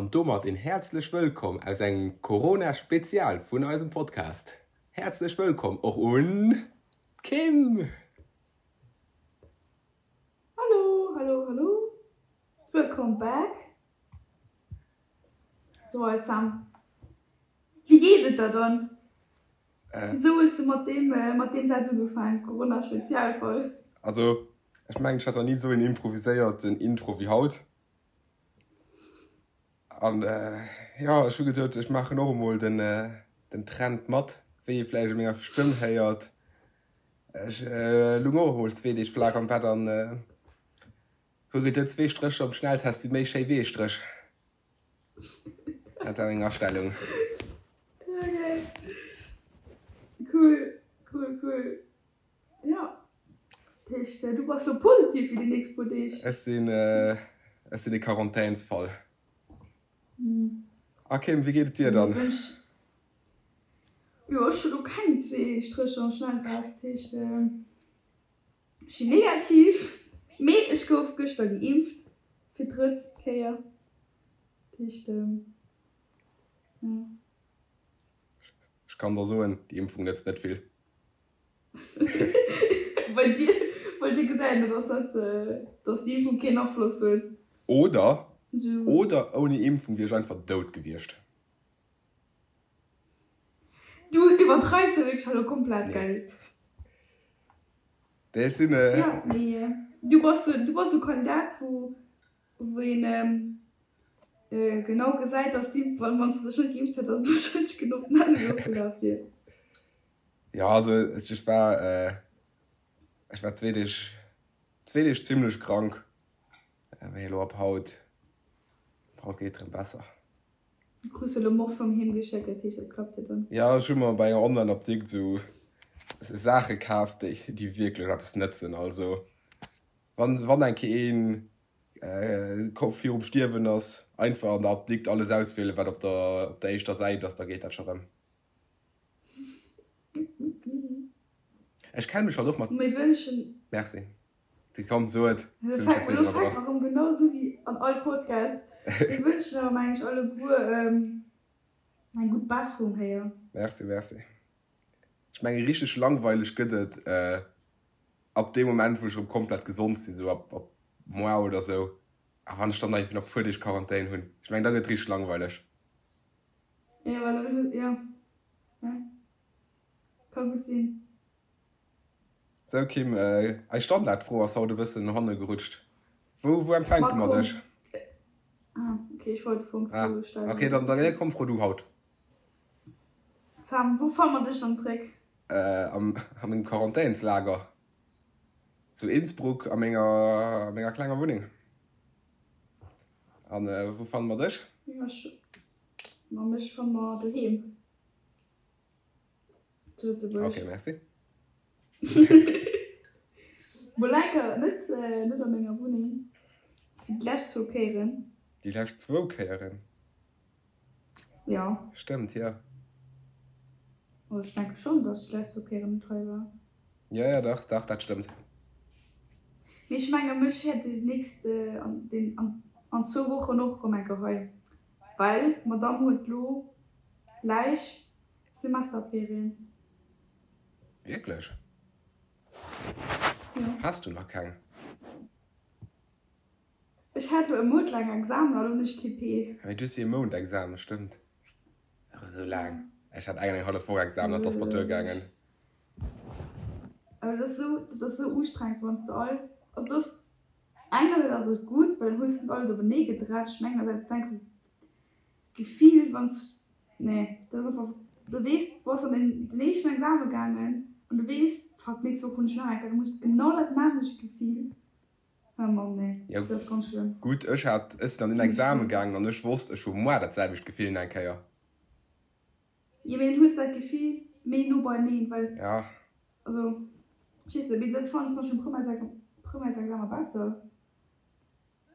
An domat een häerzlech Wëllkomm aus engem Corona-Spezial vun eisem Podcast. Häerzlech Wëllkomm och un d'Kim! Hallo, hallo, hallo! Wëllkomm back! So eis Sam, wéi geet et der dann? Wisou hues de mat deem mat deem Saz ugefaangen, Corona-Spezialfolg? Also, ech mengen, ech hat nach ni esou een improviséierten Intro wéi haut. An jo, ech hu geduet, ech maachen och emol den den Trend mat, wéi ee vläicht u menger Stëmm héiert. Ech lung och emol zwee Deeg flaach am Bett an hu geduet, zwee Strécher um Schnelltest si méi schéi wéi ee Stréch. Dat war meng Astellung. Okay. Cool, cool, cool. Jo. Dat heescht, du bass lo positiv fir déi nächst puer Deeg? Ech sinn, ech sinn e Quarantänsfall. A Kim, wéi geet et dir dann? Jo, ech hu lo keng zwee Strécher am Schnelltest, dat heescht, ech sinn negativ. Mee ech gouf gëschter geimpft fir d'drëtt Kéier. Dat heescht, jo. Ech kann der soen, déi Impfung nëtzt net vill. Bei dir, bei dir gesäit een, dass dat, dass déi Impfung keen Afloss huet. Oder, oder ouni Impfung wier ech einfach dout gewiescht. Du iwwerdreifs jo wierklech elo komplett, gell? Nee, ech sinn. Jo, mee du bass, du bass e Kandidat, wou, wou een genau gesäit, dass déi, wann s de dech net geimpft hätt, dass et warscheinlech genau d'nämmlecht ofgelaf wier. Jo, also ech war, ech war zwee Deeg, zwee Deeg zimlech krank, mee elo ab haut, ab haut geet et erëm besser. Du krus elo Morphium heem geschéckt, dat heescht dat klappt jo dann. Jo, ech hu mer bei enger Online-Apdikt esou Saache kaf, déi déi wierklech eppes nëtzen. Also wann, wann eng Kéier een virum Stierwen ass, einfach an der Apdikt alles auswielen, wat op der, op der éischter Säit ass, da geet dat scho rëm. Ech kenne mech halt och mat. Mir wënschen. Merci. Komm, so et. Elo fänke mer erëm genau esou wéi an all Podcast. Mir wënschen awer meng ech alleguer eng gutt Besserung héier. Merci, merci. Ech menge richteg langweileg gëtt et ab deem Moment wou ech erëm komplett gesond sinn, esou ab moar oder esou. A wann ech dann nach nach e puer Deeg Quarantän hunn, ech mengen da gëtt et richteg langweileg. Jo, well dann hues, jo, jo, ka gutt sinn. Sou Kim, eis Standardfro ass haut e bëssen no hanne gerutscht. Wou, wou empfänke mer dech? Ah, ok, ech wollt d'Fro Ah, stellen. ok, dann, dann komm, fro du haut. Sam, wou fanne mer dech dann zréck? Am, a mengem Quarantänslager zu Innsbruck a menger, a menger klenger Wunneng. An wou fanne mer dech? Ma mech fanne mer doheem zu Lëtzebuerg. Ok, merci. Mol enker net, net a menger Wunneng, wéi déi lescht zwou Kéieren. Déi lescht zwou Kéieren? Jo. Stëmmt, jo. Also ech denke schonn, datt ech déi lescht zwou Kéieren net hei war. Jo, jo, dach, dach, dat stëmmt. Mee ech menge mech hätt déi nächst, an zwou Wochen och erëm eng Kéier hei. Well d'Madame huet lo gläich Semesterferien. Wierklech? Jo. Has du nach keng? Ech hat lo e Mount laang Examen a lo hunn ech TP. Ah mee du hues jo e Mount Examen, stëmmt. Ach esou laang. Ech hat eng an eng hallef Woch Examen, dat ass mer duergaangen. Awer dat ass esou, dat ass esou ustrengend wann s de all, also dat ass Engersäits ass et gutt, well dann hues de net alles openee gedrätscht, mä engersäits denks de, d'Gefill wann s, nee, dat ass einfach, du weess, du bass an den den éischten Exame gaangen an du weess, fuck, d'nächst Woch hunn ech nach eng Kéier, da muss genau dat nämmlecht Gefill, oh Mann, nee, Jo, dat ass ganz schlëmm. gutt, ech hat, ech sinn an den Exame gaangen an ech wosst, ech hu moar dat selwecht Gefill nach eng Kéier. Jo, mee dann hues de dat Gefill méi no beieneen, well, Ja. also, ech weess net, mee dat fannen ech zum Beispill am Primärsexamen besser.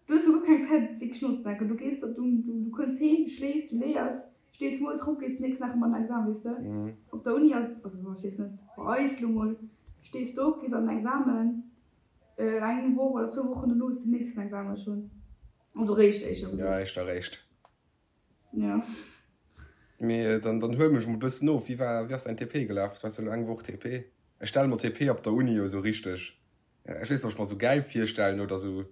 Du hues jo guer keng Zäit wierklech nozedenken, du gees op, du, du kënns heem, du schléifs, du léiers, stees moies erop, gees den nächsten Dag erëm an den Examen, weess de. Op der Uni ass, also ech weess net, bei eis elo mol, stees de op, gees an den Examen, eng Woch oder zwou Wochen dono hues de den nächsten Examen schonn, also réischt éischter gesot. Jo, éischter réischt. Jo. Mee dann, dann huel mech mol bëssen of. Wéi war, wéi ass däin TP gelaf? Du has jo elo eng Woch TP. Ech stelle mer TP op der Uni jo esou richteg, ech weess net, ob ech mer esou gäil virstellen oder esou,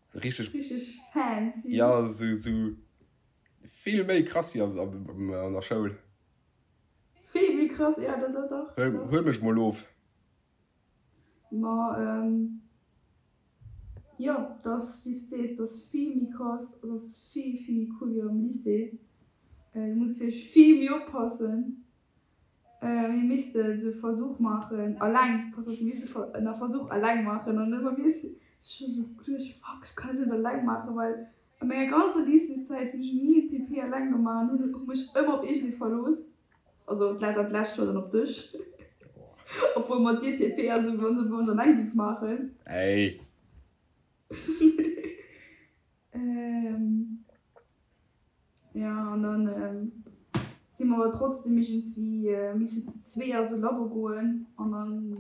esou richteg. Richteg fancy. Jo, esou, esou vill méi krass wéi an der Schoul. Vill méi krass, jo, dat, dat dach. Huel, huel mech mol of. Ma jo, dat ass wéi s de sees, dat ass vill méi krass, dat ass vill, vill méi cool wéi am Lycée. Du muss wierklech vill méi oppassen. Mir misste sou e Versuch maachen, alleng, pass op, mir misste en Versuch alleng maachen an ëmmer mir ech hu sou geduecht, fuck, ech kann dat net alleng maachen, well a menger ganzer Lycéeszäit hunn ech ni en TP alleng gemaach an hunn hu mech ëmmer op iergendee verlooss. Also dat lescht Joer dann op dech. Obwuel mat dir TP, also wann se wann alleng giff maachen. Ey. Ähm, ja an dann ähm, si mer awer trotzdem iergendswéi äh, misse zu zwee a sou Labo goen an dann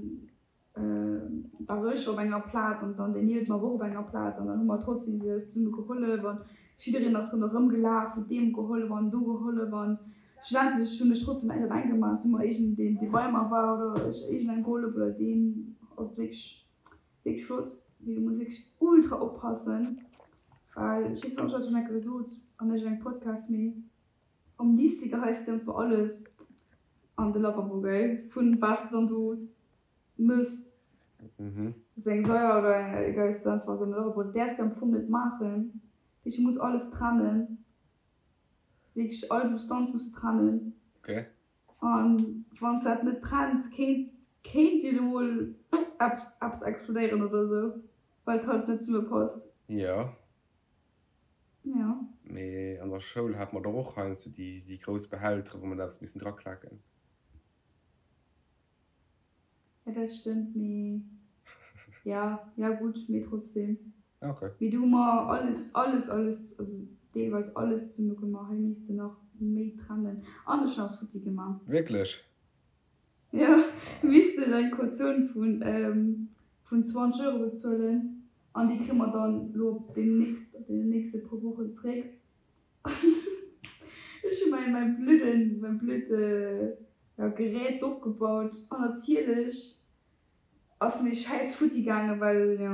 war ech op enger Plaz an dann deen niewent mer war och op enger Plaz an dann hu mer trotzdem eis zesumme gehollef an jiddereen ass ronderëm gelaf, huet deem gehollef an do gehollef an schlussendlech hunn ech trotzdem näischt alleng gemaach, hu mer iergend een dee bei mer war oder ech iergendengem gehollef oder deen, also wierklech wierklech flott, mee du muss wierklech ultra oppassen, well ech weess net ob ech dat schonn eng Kéier gesot an iergendengem Podcast, mee am Lycée geheis de einfach alles an de Lavabo, gell, vun wat s de dann do Mëss. Ass eng Saier oder eng egal ass einfach esou en Robot däerfs de am Fong net maachen. Dat heescht du muss alles trennen, wierklech all Substanz muss du trennen. Okay. An wann s dat net trenns kéint kéint dir lo mol eppes explodéieren oder esou, well et halt net zesumme passt. Jo. Jo. Mee an der Schoul hate mer dach och heiansdo déi déi grouss Behältere wou mer da eppes missen draklaken. Ja dat stëmmt, mee ja, ja gutt, mee trotzdem. Ja okay. Mee do hu mer alles, alles, alles, also deelweis alles zesumme gemaach. Hei misst de nach méi trennen. An ech hunn eppes futti gemaach. Wierklech? Jo, mir missten eng Kautioun vun vun 20 Euro bezuelen an déi kréie mer dann elo op deemnächst, op deenen nächste puer Wochen zréck. Ech hu mäi mäi blöden, mäi blöd, ja, Gerät opgebaut an natierlech ass mir schäiss futti gaangen, well, jo,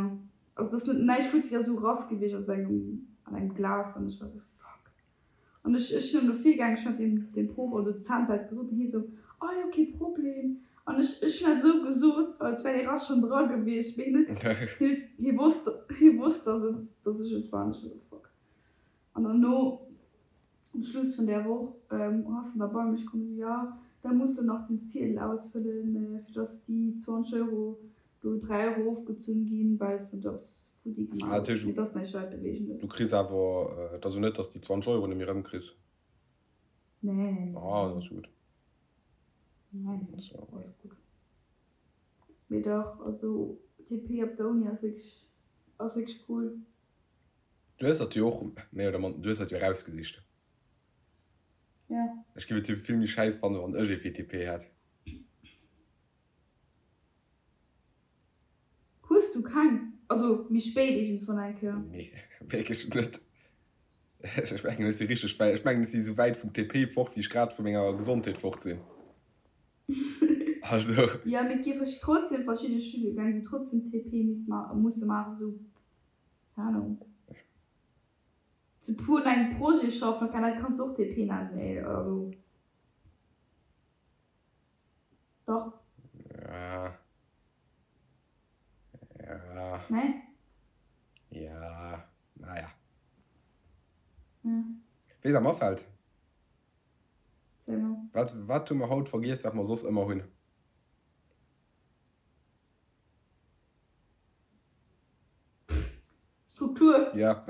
also et ass net näischt futti, ass esou rass gewiescht aus engem, an engem Glas an ech war esou fuck. An ech, ech sinn dann do virgaangen, ech hunn dat deem, deem Proff oder Dozent dat gesot an hie esou, oh jo, kee Problem. An ech, ech hunn dat esou gesot, als wär dee Rass schonn dra gewiescht, mee hien huet, hien huet, hie wosst, hie wosst, dass et, dass ech et war an ech war esou fuck. An derno, um Schluss vun där Woch, ass en da bei mech komm, esou, jo, da muss de nach den Ziedel ausfëllen, fir dass déi 20 Euro do 3 Euro ofgezunn ginn, well s de do eppes futti gemaach hues. Mee et ass näischt Weltbewegendes. Du kriss awer, et ass jo net, dass de déi 20 Euro net méi erëmkriss? Nee, nee, nee. Ah, dat ass gutt. Nee, nee, alles gutt. Mee dach, also TP op der Uni ass wierklech, ass wierklech cool. Du hues dat jo och méi oder manner, du hues dat jo erausgesicht. Ja. Ech géif et jo vill méi schäiss fannen, wann ech ee VTP hätt. Hues du keng? Also méi spéit iergendswann eng Kéier? Nee, wierklech net. Ech mengen, ech si richteg wäit, ech mengen, ech si esou wäit vum TP fort, wéi ech grad vu menger Gesondheet fort sinn. Also. Jo, mee et gi trotzdem verschidde Studiegäng, wou trotzdem TP misst musse maachen, esou Keng Ahnung. Zu puer un engem Projet schaffen, okay, dat kanns de och TP nennen, mee also dach. Ja. Ja. Nee? Ja, naja. Ja. Weess am afält? Sag mol. Wat, wat hu mer haut vergiess, wat mer soss ëmmer hunn? Struktur. Ja.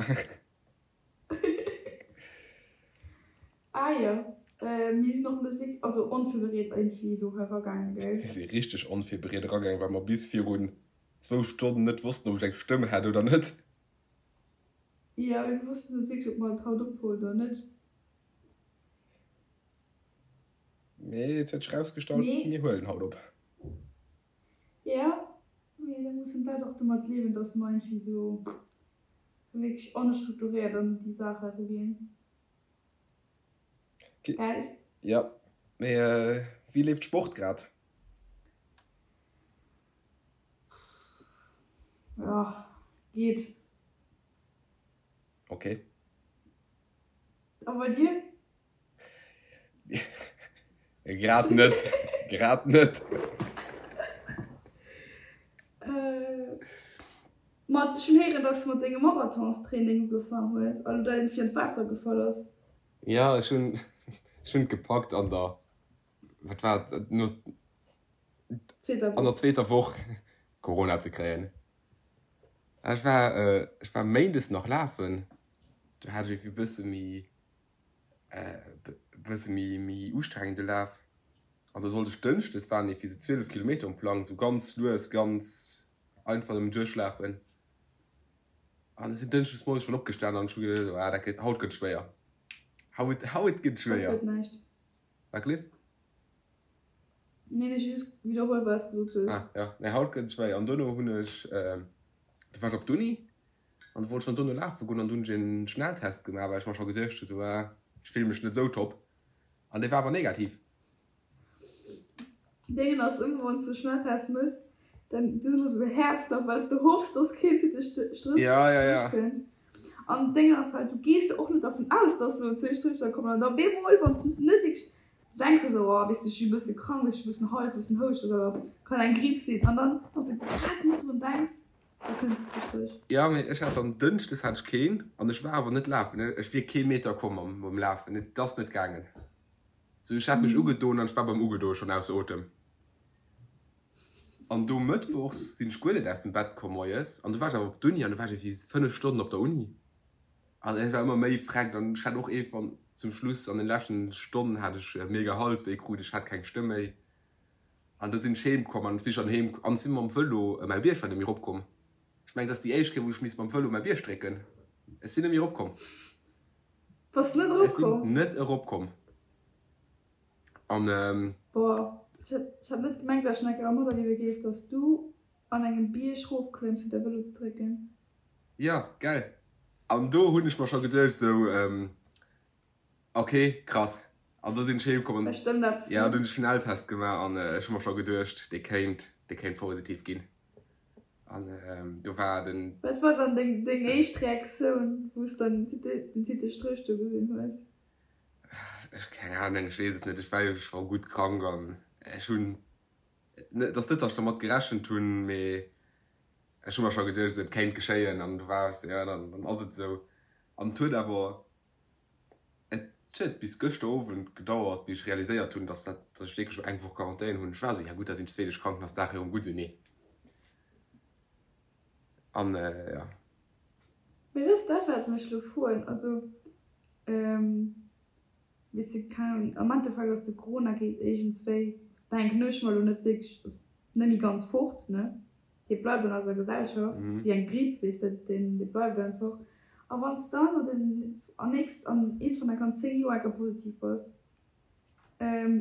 Ah jo, mir sinn och net wierklech, also onvirbereet iergendwéi do hei eragaangen, gell? Mir si richteg onvirbereet eragaangen, well mer bis virun zwou Stonnen net wossten, ob ech eng Stëmm hätt oder net. Jo, mir wossten net wierklech, ob mer et haut ophuelen oder net. Mee et huet sech erausgestallt, mir huelen haut op. Jo, mee da mussen d'Leit och domat liewen, dass mer iergendwéi esou wierklech onstrukturéiert an déi Saach eruginn. Gell? Ja, mee wéi leeft Sport grad? Jo, geet. Ok. A bei dir? Grad net, grad net. Ma ech hunn héieren, dass de mat dengem Marathonstraining ugefaang hues an du dann fir an d'Waasser gefall ass. Jo, ech hunn, ech hunn et gepackt an der, wat war et, no, an der zweeter Woch Corona ze kréien. Ech war, ech war méindes nach lafen, do hat ech e bësse méi bësse méi méi ustrengende Laf. An da sollt ech dënschdes waren iergendwéi sou 12 Kilometer um Plang, sou ganz lues, ganz einfach nëmmen duerchlafen. An ech sinn dënschdes moies schonn opgestan an ech hu geduecht, ah dat gëtt, haut gëtt schwéier, haut, haut gëtt schwéier. Haut gëtt näischt. Wat Cliff? Nee, ech hu just widderholl wat s de gesot hues. Ah ja, nee haut gëtt schwéier. An dono hunn ech, du war ech op d'Uni An du wollt schon dono lafe goen an du hunn ech en Schnelltest gemaach, well ech mer scho geduecht hu sou, ah, ech fille mech net sou top. An dee war awer negativ. Déngen ass ëmmer wanns de Schnelltest mëss, dann du hues ëmmer sou e Häerzklapp wells de hoffs dass keen zweete Strëch Ja, ja, ja. kënnt. An d'Déngen ass halt, du gees jo och net dervun aus dass elo zwee Strécher kommen an da bemol wann s de net wierklech, du denks der sou, oh weess de ech si e bësse krank, ech hu e bëssen Hals, e bëssen Houscht, ass awer kann eng Gripp sinn an dann wanns de grad net drun denks, Jo, mee ech hat dann Dënschdes hat ech keen an ech war awer net lafen. Ech wier kee Meter komm mam Lafen, et ass net gaangen. Sou ech hat mech ugedoen an ech war beim Ugedoe schonn ausser Otem. An do mëttwochs sinn ech guer net aus dem Bett komm moies an du war ech awer op d'Uni an du war ech ewéi 5 Stonnen op der Uni an ech war ëmmer méi freckt an ech hat och ee van zum Schluss an den leschten Stonnen hat ech mega Halswéi krut, ech hat keng Stëmm méi. An da sinn ech heem komm an ech si schonn heem an ech si mam Vëlo mäi Bierg war net méi eropkomm. Ech mengen, et ass déi éischt Kéier, wou ech misst mam Vëlo mäi Bierg drécken. Ech sinn net méi eropkomm. Bass net Ech sinn eropkomm? net eropkomm. An. Boah, ech hätt, ech hätt net gemengt, dat ech nach eng Kéier materliewe géif, dass du an engem Bierg rofklëmms fir däi Vëlo ze drécken. Jo, gell. An do hunn ech mer scho geduecht esou, Ok, krass. An do sinn ech heem komm an Da stëmmt eppes ja, du hunn ech Schnelltest gemaach an ech hu mer scho geduecht, dee kéint, dee kéint positiv ginn. An do war den. Wat war dann deng, deng éischt Reaktioun, wou s dann den Titel Stréch do gesinn hues? Ech, keng Ahnung, ech weess et net. Ech war jo scho gutt krank an ech hunn, et ass net, datt ech dermat gerechent hunn, mee ech hu mer scho geduecht, esou et kéint geschéien an du war ech sou, jo, dann, dann ass et esou. An et huet awer. Et huet bis gëschter Owend gedauert, bis ech realiséiert hunn, dass dat, dass ech wierklech elo eng Woch Quarantän hunn. Ech war esou, ja gutt, da sinn ech zwee Deeg krank, dann ass d'Saach erëm gutt. Esou, nee. An jo. Mee dat ass dat, wat mech elo froen. Also, weess de, keng Ahnung, am Endeffekt ass de Corona geet iergendswéi, denken ech mer elo, net wierklech, also net méi ganz fort, ne? Dee bleift an eiser Gesellschaft, wéi eng Gripp, weess de, deen dee bleift einfach. A wann s dann an den an nächst an eent vun enker 10 Joer enker positiv bass,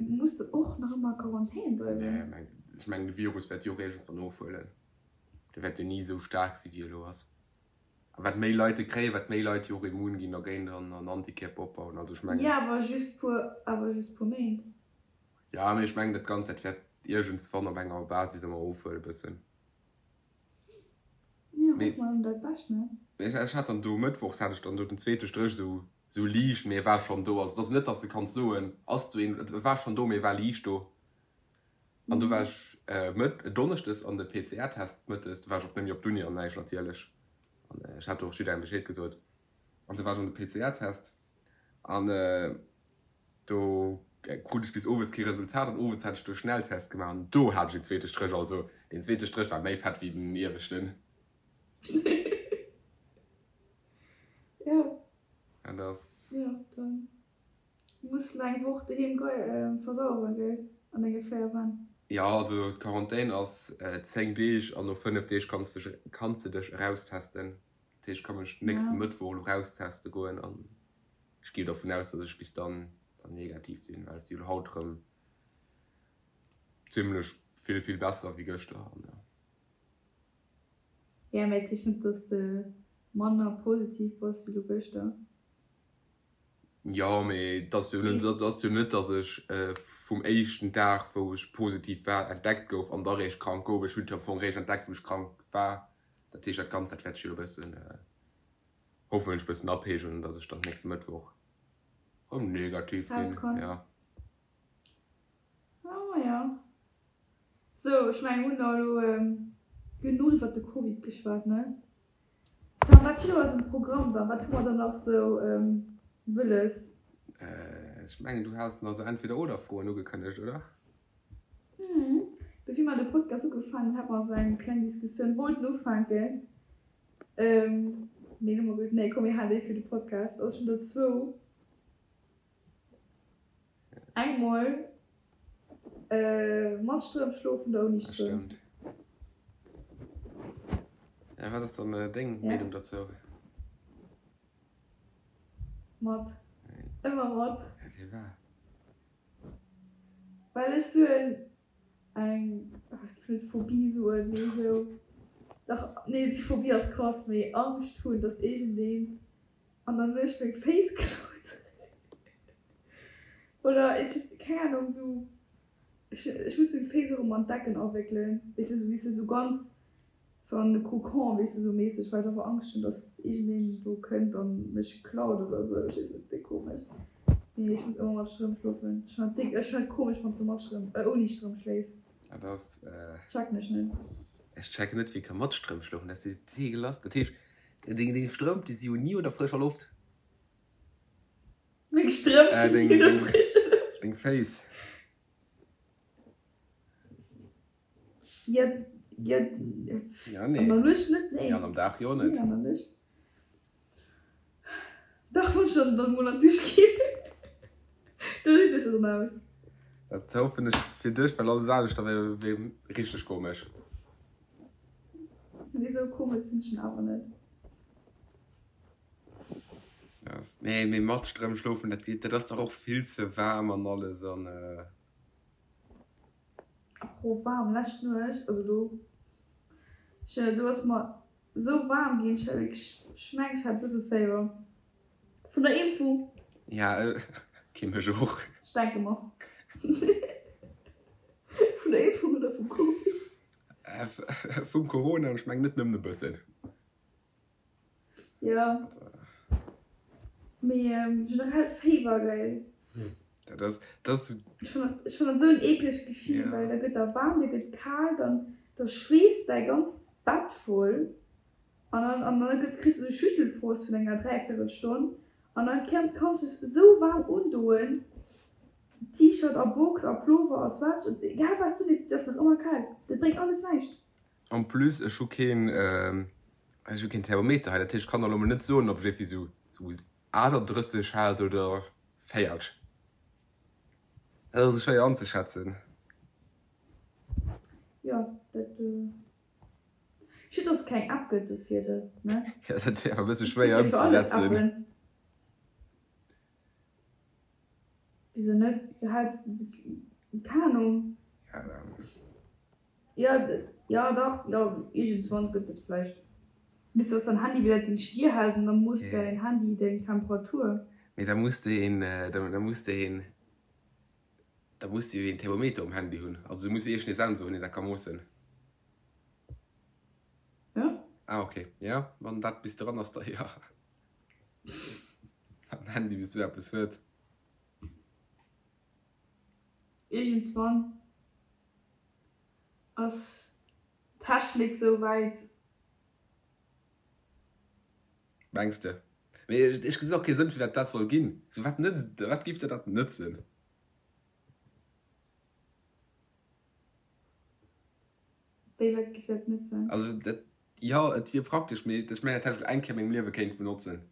muss de och nach ëmmer a Quarantän bleiwen? Nee, meng ech mengen de Virus wäert jo och iergendswann ofhuelen. De wäert jo ni esou staark si wéi e lo ass. A wat méi Leit e kréien, wat méi Leit jo och immun ginn dergéint an an Antikierper opbauen. Also ech mengen. Jo, awer just puer awer just puer Méint. Jo, mee ech mengen dat Ganzt dat wäert iergendswann op enger Basis ëmmer ofhuelen e bëssen. Jo, hoffe mer ëm dat Bescht, ne? Mee ech hat dann do mëttwochs hat ech dann do den zweete Stréch esou esou liicht, mee e war schonn do. Also et ass net, datt s de kanns soen, ass do een, et war schonn do, mee e war liicht do. An do war ech mëtt donneschdes an de PCR-Test mëttes, do war ech och net méi op d'Uni an näischt natierlech. An ech hat do och jidderengem Bescheed gesot. An do war ech an de PCR-Test an Do krut ech bis owes kee Resultat an owes hat ech do Schnelltest gemaach an do hat ech een zweete Stréch. Also deen zweete Stréch war méi fett wéi den ieweschten. Jo. Dat ass. Jo, dann muss de eng Woch doheem versaueren, gell, an denge 4 Wänn. Jo, also d'Quarantän ass 10 Deeg an no 5 Deeg kanns de kanns de dech eraustesten. Dat heescht, ech ka mech nächste Mëttwoch elo erausteste goen an. Ech gi dervun aus, dass ech bis dann dann negativ sinn, well et si lo haut rëm zimlech vill, vill besser wéi gëschter an jo. Jo, mä et heescht net, dass de manner positiv bass wéi lo gëschter. Jo, mee et ass jo net, et ass jo net, datt ech vum éischten Dag, wou ech positiv war, entdeckt gouf an da réischt krank gouf. Ech hunn et jo am Fong réischt entdeckt, wou ech krank war. Dat heescht, dat Ganzt, dat wäert sech jo e bëssen, hoffentlech e bëssen apeegelen, datt ech dann nächste Mëttwoch erëm negativ sinn. Jo. Ah jo. Sou, ech mengen, mir hunn da elo genuch iwwert de Covid geschwat, ne? Sam, wat steet op eisem Programm dann? Wat hu mer dann nach sou wëlles? Ech mengen, du has nach sou Entweder-oder-Froen ugekënnegt, oder? Mhm. Bevir mer de Podcast ugefaangen hunn, hate mer sou eng kleng Diskussioun, wollten ufänken, mee hu mer gesot, nee komm, mir halen déi fir de Podcast. Also ech hunn der zwou. Eng mol mat Strëmp schlofen oder ouni Strëmp? Stëmmt. Ja, wat ass dann deng Meenung dozou? Mat. Ëmmer mat. Ja, firwat? Well ech sou en eng, ech géif net Phobie soen, mee sou, dach, nee, déi Phobie ass krass, mee Angscht hunn, dass iergendeen An dann hunn ech meng Féiss geklaut. Oder ech just, keng Ahnung, sou, ech, ech muss meng Féiss och ëmmer an d'Decken awéckelen, weess de, sou, weess de, sou ganz sou an de Kokon, weess de, sou méisseg, well ech einfach Angscht hunn, dass iergendeen do kënnt an mech klaut oder sou. Ech weess net, déck komesch. Mee ech muss ëmmer mat Strëmp schlofen. Ech fannen dat déck, ech fannen et komesch, wann s de mat Strëmp, äh, ouni Strëmp schléifs. Dat ass, äh. Checken ech net. Ech checken net, wéi ka mat Strëmp schlofen, dat ass jo deegelass. Dat heescht, Deng Strëmp, déi si jo ni un der frëscher Loft. Meng Strëmp sinn ni un der frëscher Loft. Deng Féiss. Jo, jo, Ja, nee. An der Nuecht net, nee. Ja, an am Dag jo net. Nee, an der Nuecht. Dach, wann ech dann mol an d'Dusch ginn, da sinn ech dann aus. Dat hoffen ech fir dech, well alles aneschter wär richteg komesch. Nee sou komesch sinn ech awer net. Nee mee mat Strëmp schlofen dat geet, dat ass dach och vill ze waarm an alles an. Apropos waarm, lescht Nuecht, also do, ech do ass mer sou waarm ginn, ech hat wierklech, ech mengen ech hat e bësse Féiwer vun der Impfung. Ja okay mech och. Ech denke mer vun der Impfung oder vum Covid. Vum Corona, an ech mengen net nëmmen e bëssen. Jo, mee generell Féiwer, gell? Dat ass, dat ass. Ech fannen, ech fannen dat esou en eeklegt Gefill, well da gëtt der waarm, dir gëtt kal, dann da schweesst däi ganzt Bett voll an dann an dann gëtt kriss du esou Schüttelfrost vun enger Dräiviertelstonn an dann kanns du es esou waarm undoen. T-Shirt a Box a Plover a Sweatshirt, egal wat s du undees, et ass nach ëmmer kal. Dat bréngt alles näischt. En plus, ech hu keen, ech hu keen Thermometer hei, dat heescht, ech kann der elo mol net soen, ob ech iergendwéi sou sou 38 hat oder 40. Dat ass esou schwéier anzeschätzen. Jo, dat, schued dass et keng App gëtt dofir, ne? Jo, dat wier awer e bësse schwéier ëmzesetzen. Wieso net? Du häls keng Ahnung. Jo, jo dach, jo iergendswann gëtt et vläicht. Bis dass dein Handy wieder deng Stier hält an da moosst däin Handy deng Temperatur. Mee da muss de een, da muss de een, da muss de jo een Thermometer um Handy hunn. Also du muss jo iergendee Sensor hunn, deen dat ka moossen. Jo. Ah ok, jo, wann dat bis dran ass, da jo. Wann den Handy bis esou eppes huet. Iergendswann ass d'Technik sou wäit. Mengs de? Mee ech gesinn och kee Sënn firwat dat soll ginn. Sou wat nëtzt, wat géif der dat nëtzen? Wéi wat géif dat nëtzen? Also dat, jo et wier praktesch, mee ech mengen dat hätt ech eng Kéier a mengem Liewe kéint benotzen.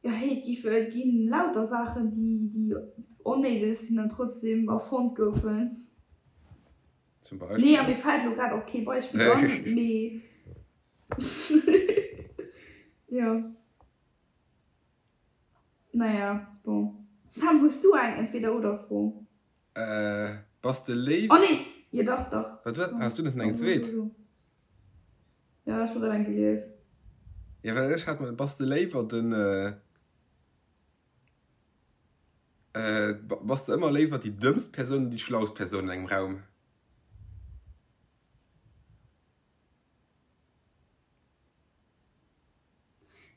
Jo hey, et gi et ginn lauter Saachen déi déi onnéideg sinn an trotzdem erfonnt goufen. Zum Beispill? Nee a mir fält elo grad och kee Beispill an, mee jo. Naja, bon. Sam, hues du eng Entweder-oder-Fro? Bass de léif. Oh nee! Jo dach, dach. Wat, wat? Has du net eng zweet? Jo, ech hu grad eng gelies. Jo, well ech hat mer, bass de léiwer den, bass de ëmmer léiwer déi dëmmst Persoun oder déi schlaust Persoun an engem Raum?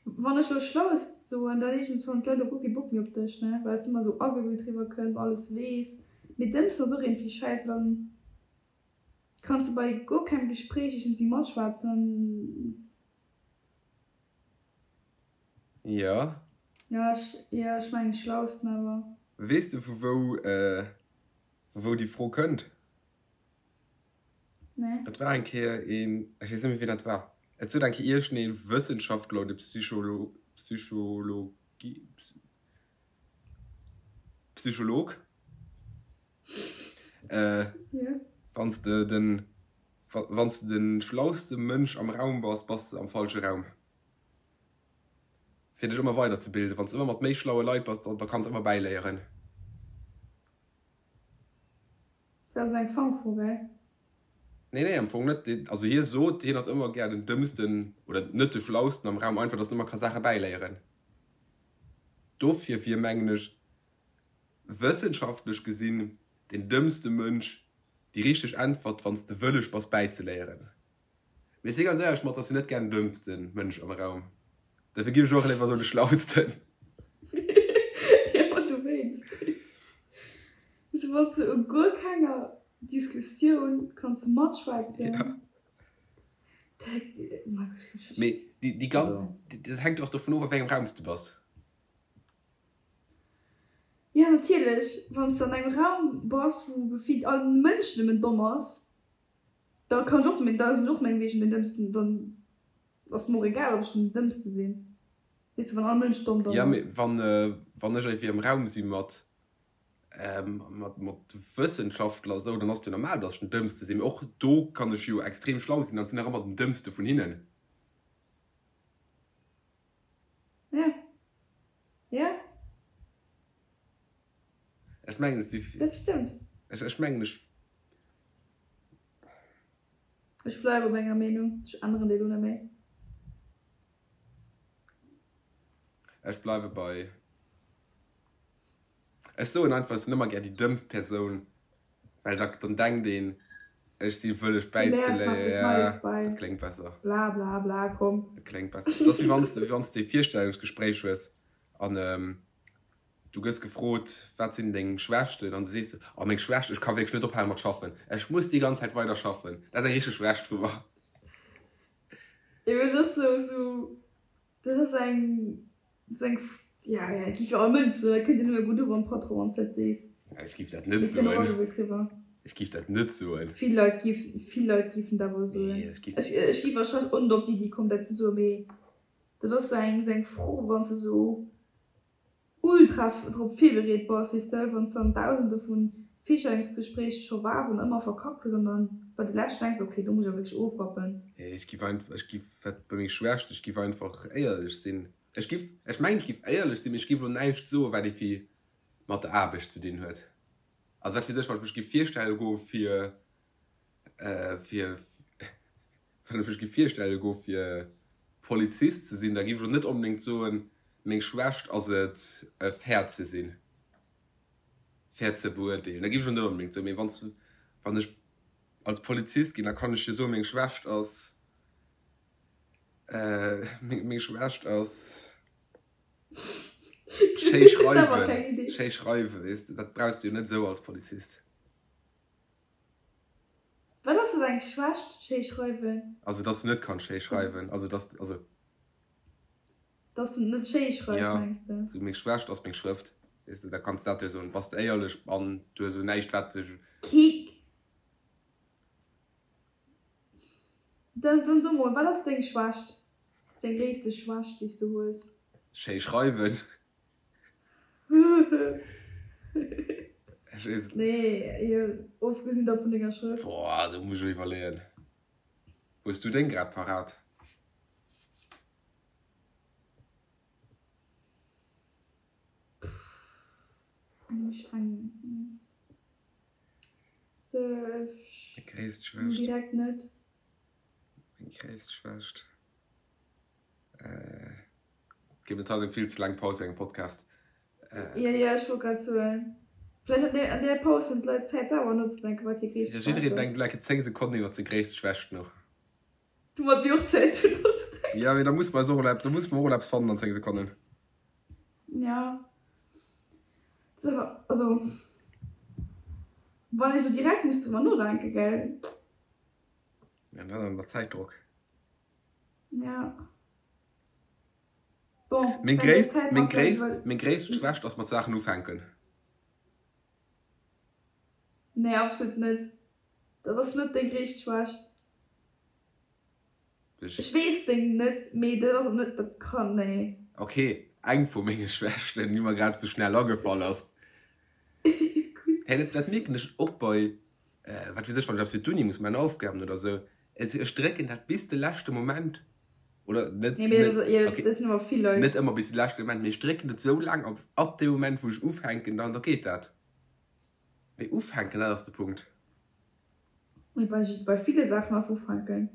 Wann ech lo schlaust soen, dann iergends hunn d'Leit och guer kee Bock méi op dech, ne, well s de ëmmer sou agebilt riwwer kënns, alles weess. Mee dëmmst ass och iergendwéi schäiss, well dann kanns de bei guer kengem Gespréich iergendwéi matschwätzen. Jo. Jo, ech, jo, ech mengen schlausten awer. Weess de vu wou, vu wou déi Fro kënnt? Nee. Et war eng Kéier een, ech weess net méi wien dat war, et sot eng Kéier iergendee Wëssenschaftler oder Psycholo, Psychologie, Psycholog, äh, Ja. wann s de den, wann s de de schlauste Mënsch am Raum bass, bass de am falsche Raum. Fir dech ëmmer weiderzebilden. Wann s de ëmmer mat méi schlaue Leit bass, da kanns de ëmmer bäiléieren. Dat ass eng Fangfro, gell? Nee, nee, am Fong net. Also hie sot, hien ass ëmmer gär den Dëmmsten oder net de Schlausten am Raum, einfach, datt en ëmmer ka Saache bäiléieren. Dofir wier, mengen ech, wëssenschaftlech gesinn den dëmmste Mënsch déi richteg Äntwert, wann s de wëlleg bass bäizeléieren. Mee ech si ganz éierlech mat, dass si net gär den dëmmsten Mënsch am Raum. Dofir ginn ech och léiwer sou de schlausten. Jo, ma dowéinst. Sou wann s de u guer kenger Diskussioun kanns matschwätzen. Ja. Mee déi, déi ganz, dat hänkt och dovun of, a wéi engem Raum s de bass. Jo, natierlech. Wann s de an engem Raum bass, wou gefillt all Mënsch nëmmen domm ass. Da kann ech och, da sinn ech och mengewegen den Dëmmsten, dann ass et mer och egal, ob ech den Dëmmste sinn, weess de, wann all Mënsch domm domm Ja, mee ass. wann, wann ech irgendwie am Raum si mat, mat, mat Wëssenschaftler esou, dann ass et jo normal, datt ech den Dëmmste sinn. Mee och do kann ech jo extrem schlau sinn an sinn nach ëmmer den Dëmmste vun hinnen. Ja, ja. Ech mengen, ech si. Dat stëmmt. Ech, ech mengen, ech. Ech bleiwe bei menger Meenung, ech änneren déi elo net méi. Ech bleiwe bei, ech soen einfach, ech sinn ëmmer gär déi dëmmst Persoun, well da, dann denkt een, ech si wëlleg Du léiers nach bäizeléieren. eppes Ja, Neies bei. dat kléngt besser. Bla bla bla, komm. Dat kléngt besser. Dat ass wéi wann s de, wéi wann s de e Virstellungsgespréich hues an Du gëss gefrot, Wat sinn deng Schwächten? An du sees, Oh, meng Schwächt, ech ka wierklech net ophale mat schaffen. Ech muss déi ganz Zäit weider schaffen. Dat ass eng richteg Schwächt vu mer. Jo, mee dat ass sou, sou, dat ass eng, dat ass eng, ja, ja, et giff jo all Mënsch soen, dat kënnt jo nëmme gutt uewer am Patron, wann s de dat sees. Ech giff dat net Mee et kënnt och soen. allgeméi driwwer. Ech giff dat net soen. Vill Leit giff, vill Leit giffen dat awer soen. Nee, ech giff. Ech, ech giff warscheinlech och net op d'Iddi kommen, dat ze soen, mee dat ass sou eng, sou eng Fro, wann s de sou ultra drop virbereet bass, weess de, wann s de an dausende vu Virstellungsgespréicher scho waars an ëmmer verkackt hues an dann bei de leschten denks, ok, do muss ech awer wierklech ofrappen. Nee, ech giff einfach, ech giff, wat bei meng Schwächt, ech giff einfach éierlech sinn. Ech giff, ech mengen ech giff éierlech sinn, mee ech giff elo näischt soen, wat iergendwéi mat der Aarbecht ze dinn huet. Also wat weess ech, wann ech mech giff virstelle goe fir, fir, wann ech mech giff virstelle goe fir Polizist ze sinn, da giff ech och net onbedéngt soen, meng Schwächt ass et fair ze sinn, fair ze beurteelen. Da giff ech och net onbedéngt soen. Mee wann s, wann ech als Polizist ginn, da kann ech jo soen, meng Schwächt ass, meng Schwächt ass schéi schreiwen, schéi schreiwen, weess de, dat brauchs de jo net esou als Polizist. Wat ass dat eng Schwächt, schéi schreiwen? Also dass de net kanns schéi schreiwen, also dass, also. Dass de net schéi schreifs, Ja, mengs de? sou meng Schwächt ass meng Schrëft, weess de, da kanns de dat jo soen, bass de éierlech an du hues elo näischt wat dech. Kik. Dann, dann so mol, wat ass deng Schwächt? Deng gréisste Schwächt déi s du hues? Schéi schreiwen. Ech weess et net. Nee, jo, ofgesinn da vun denger Schrëft. Boah, do muss ech elo iwwerleeën. Hues du deng grad parat? Eng, eng, se, Meng gréisst Schwächt. Direkt net. Meng gréisst Schwächt. Ginn et haut eng vill ze laang Paus fir engem Podcast. Jo, jo, ech wollt grad soen, vläicht an där, an där Paus hunn d'Leit Zäit selwer nozedenken, wat hir gréisst Schwächt ass. Jiddereen denkt elo eng Kéier 10 Sekonnen iwwer seng gréisst Schwächt no. Domat mir och Zäit hunn nozedenken. Jo, mee da musse mer eis och elo eppes, da musse mer och elo eppes fannen an 10 Sekonnen. Jo, dat ass awer, also wann ee sou direkt muss driwwer nodenken, gell? Ja, dann ënner Zäitdrock. Ja. Bon, Meng well déi gréisst, Zäit meng mat vläicht gréisst, iwwer. meng gréisst Schwächt ass mat Saachen ufänken. Nee, absolut net. Dat ass net deng gréisst Schwächt. Ech. Ech weess deng net, mee dat ass och net, dat kann, nee. Ok, eng vu menge Schwächten, déi mer grad sou schnell agefall ass. Gutt. Hey, dat, dat mierken ech och bei, wat weess ech, wann ech eppes fir d'Uni muss maachen, Aufgaben oder sou. Ech drécken dat bis de leschte Moment, oder net, Nee, mee net, dat, jo, okay, dat sinn awer vill Leit. net ëmmer bis de leschte Moment, mee ech drécken et sou laang op, ab deem Moment wou ech ufänken, dann, da geet dat. Mee ufänken, dat ass de Punkt. Mee bei, bei ville Saachen einfach ufänken.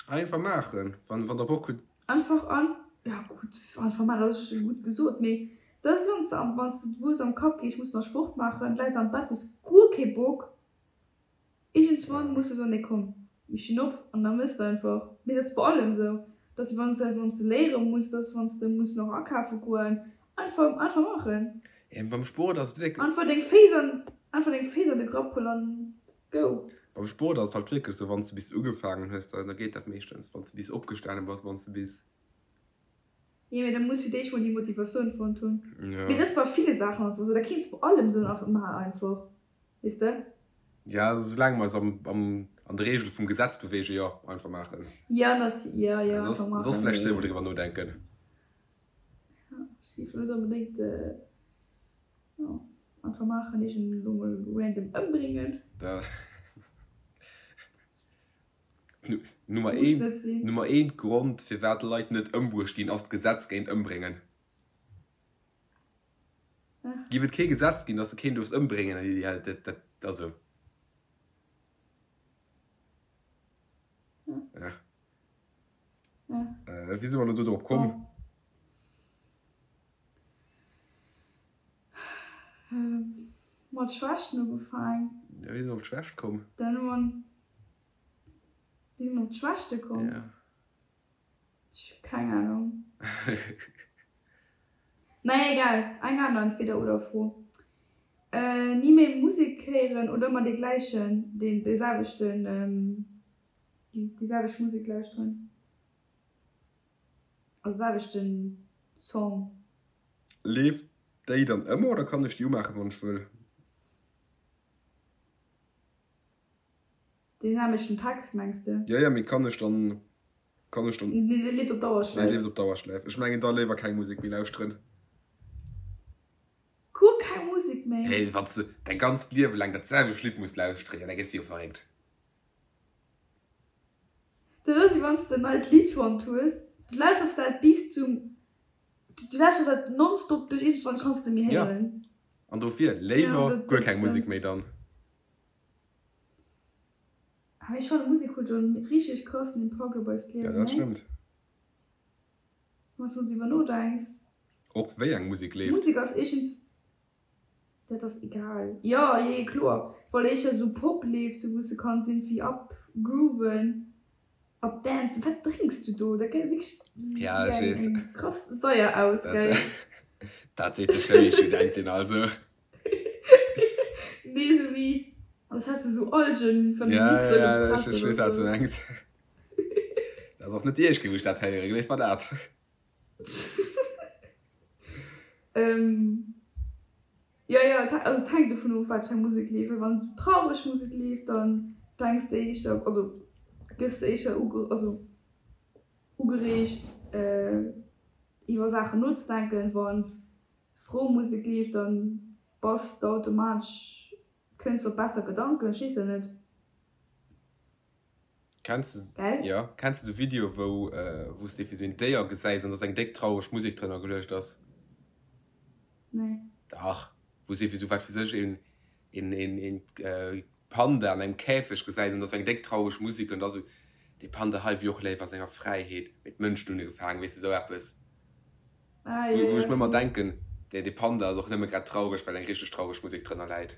Einfach maachen, wann, wann der Bock hutt. Einfach an, ja gutt, einfach maachen, dat ass scho gutt gesot, mee dat ass, wann s de am, wann s de du hues am Kapp, okay, ech muss nach Sport maachen, läis am Bett, hues guer kee Bock, Iergendswann muss de soen, nee komm, mir stinn op an da mëss de einfach. Mee dat ass bei allem esou, dass wann s de wann s de léiere muss, dass wann s de muss nach akafe goen, einfach einfach maachen. Ja, beim Sport ass et wierklech. Einfach deng Féiss an einfach deng Féiss an de Grapp huelen an go. Beim Sport ass et halt wierklech esou, wann s de bis ugefaangen hues, da geet dat meeschtens. Wann s de bis opgestane bass, wann s de bis. Jo, mee da muss fir d'éischt mol déi Motivatioun fonnt hunn. Ja. Mee dat ass bei ville Saachen einfach esou, da kéints bei allem soen, einfach maach einfach, weess de? Ja, soulaang mer eis am, am, an de Reegele vum Gesetz beweegen, jo, einfach maachen. Ja, nat, ja, ja, Soss, einfach maachen, soss vläicht mee. zweemol driwwer nodenken. Ja, ech géif elo net onbedéngt, jo, einfach maachen, iergend elo mol random ëmbréngen. Da. Nummer Muss een, net sinn. Nummer een Grond firwat Leit net ëmbruecht ginn ass d'Gesetz géint Ëmbréngen. Ja. Giff et kee Gesetz ginn, dass de keen duerfs ëmbréngen, ja dat, dat, also. Ja. Ja. Ja. Wéi si mer elo do drop komm? Bon. Mat Schwächten ugefaang. Ja, wéi si mer op d'Schwächt komm? Dann hu mer. Wéi si mer op d'Schwächte komm? Ja. Ech hu keng Ahnung. Naja, egal. Eng aner Entweder-oder-Fro. Ni méi Musek héieren oder ëmmer dee gläichen, dee selwechten, déi selwecht Musek lauschteren? Also selwechten Song. Leeft déi dann ëmmer oder kann ech déi umaachen wann ech wëll? Deen nämlechten Text mengs de? Jo jo, mee kann ech dann, kann ech dann. Nee, dee leeft op Dauerschläif. Dee leeft op Dauerschläif. Ech mengen da léiwer keng Musek méi lauschteren. Guer keng Musek méi? Hey, wann s de däi ganzt Liewe laang dat selwecht Lidd muss lauschteren, jo da gëss de jo verréckt. Dat ass wéi wann s de en neit Lidd fonnt hues, du lauschters dat bis zum, du lauschters dat nonstop duerch, iergendwann kanns de méi Jo, héieren. an dofir Ja, léiwer dat guer dat keng Musek stëmmt. méi dann. Awer ech fannen Musek huet en richteg krassen Impakt op eist Ja, Liewen, dat nee? stëmmt. Wann s de mol driwwer nodenks. Och wéi eng Musek leeft. Musek ass éischtens Dat ass egal. Jo, jee, kloer. Well éischter sou Pop leeft, sou wou s de kanns irgendwie up grooven, up dancen. Wat drénks du do? Dat gesäit wierklech Ja, wéi ech eng, weess. eng krass Saier aus, Dat, gell? dat seet de Chemiestudentin also. Nee, sou wéi als häss de sou Algen van de Ja, Mixer ja, ech, gepresst ech oder weess, wat s du sou. mengs. Dat ass och net déi éischt Kéier, wou ech dat héieren, gleef mer dat. Ähm, jo, jo, et also et hänkt dovun of, wat fir eng Musek leeft. Well wann traureg Musek leeft, dann denks de éischter, also gëss de éischter uge also ugereegt iwwer Saachen nozedenken. Wann frou Musek leeft, dann bass de automatesch, kënns de op besser Gedanken, ech weess et net. Kenns de, Gell? jo, kenns de sou Videoe wou wou s de wéi sou een Déier gesäis an dass eng déck traureg Musek drënner geluecht ass? Nee. Dach, wou s de wéi sou wat weess ech een een een een Panda an engem Käfeg gesäis an dass eng déck traureg Musek an da sou. Dee Panda hei wier och léif a senger Fräiheet, mee d'Mënschen hunn e gefaangen, weess de, esou eppes. Ah, jo, Wou jo. ech mer ëmmer denken, dee, dee Panda ass och nëmme grad traureg, well eng richteg traureg Musek drënner läit.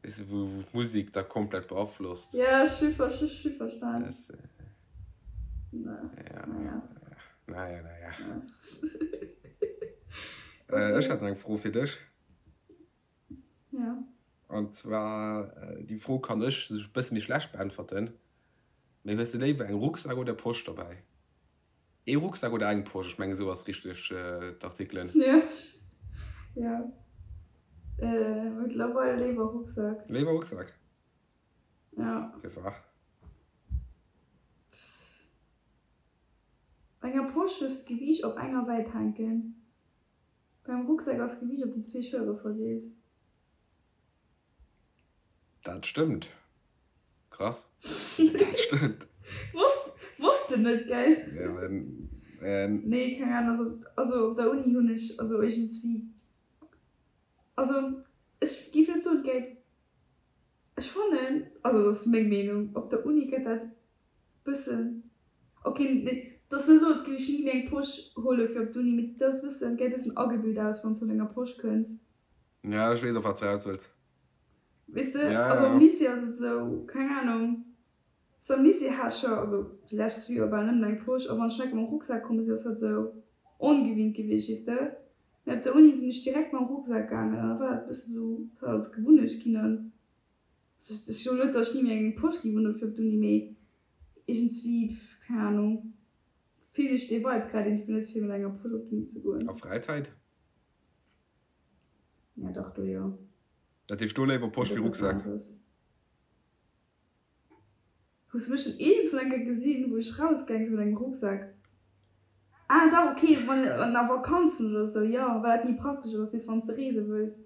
Weess de, wou, wou d'Musek da komplett beaflosst. Ja, ech hu, ech hu verstan. Das, Na, ja, naja. naja, naja. Okay. Ech hätt nach eng Fro fir dech. Ja. An zwar, déi Fro kann ech e bësse méi schlecht beäntwerten, mee hues de léiwer eng Rucksak oder Posch dobäi? Ee Rucksak oder eng Posch? Ech mengen esou ass richteg d'Artikelen. Ja, ja. Mëttlerweil léiwer Rucksak. Léiwer Rucksak? Ja. Firwat? Bei enger Posch hues de d'Gewiicht op enger Säit hänken. Beim Rucksak ass d'Gewiicht op déi zwee Schëllere verdeelt. Dat stëmmt. Krass. Dat stëmmt. Wosst, wosst de net, gell? Ja, ähm. Nee, keng Ahnung. Also, also op der Uni hunn ech, also iergendswéi, also ech géif net soen, et gäit, ech fannen, also dat ass meng Meenung, op der Uni gëtt dat Bëssen. Ok, nee, et ass net esou, als géif ech ni méi eng Posch huele fir op d'Uni, mee et ass e bëssen, gesäit e bëssen agebilt aus, wann s de mat enger Posch kënns. Ja, ech weess, op wat s de eraus wëlls. Weess de, Ja, also ja. am Lycée ass et esou, keng Anung, so am Lycée hat ech jo, also déi lescht zwee Joer bal nëmmen eng Posch, a wann ech enke mam Rucksak komm sinn, ass dat esou ongewinnt gewiescht, weess de. Mee op der Uni sinn ech direkt mam Rucksak gaangen an da war dat e bësse sou, dat ass Gewunnecht ginn an Ech soen net, datt ech ni méi eng Posch géif unhunn fir op d'Uni, mee iergendswéi, keng Ahnung, fillen ech dee Vibe grad iergendwéi net, fir mat enger Posch op d'Uni ze goen. A Fräizäit? Ja dach, do jo. Dat heescht do léiwer Posch Dat wéi ass eppes Rucksak? aneres. Hues de mech schonn iergendswou eng Kéier gesinn, wou ech rausgaang sinn mat engem Rucksak? Ah dach, ok, wann an a Vakanzen oder sou, jo, well dat méi praktesch ass, weess, wann s de reese wëlls.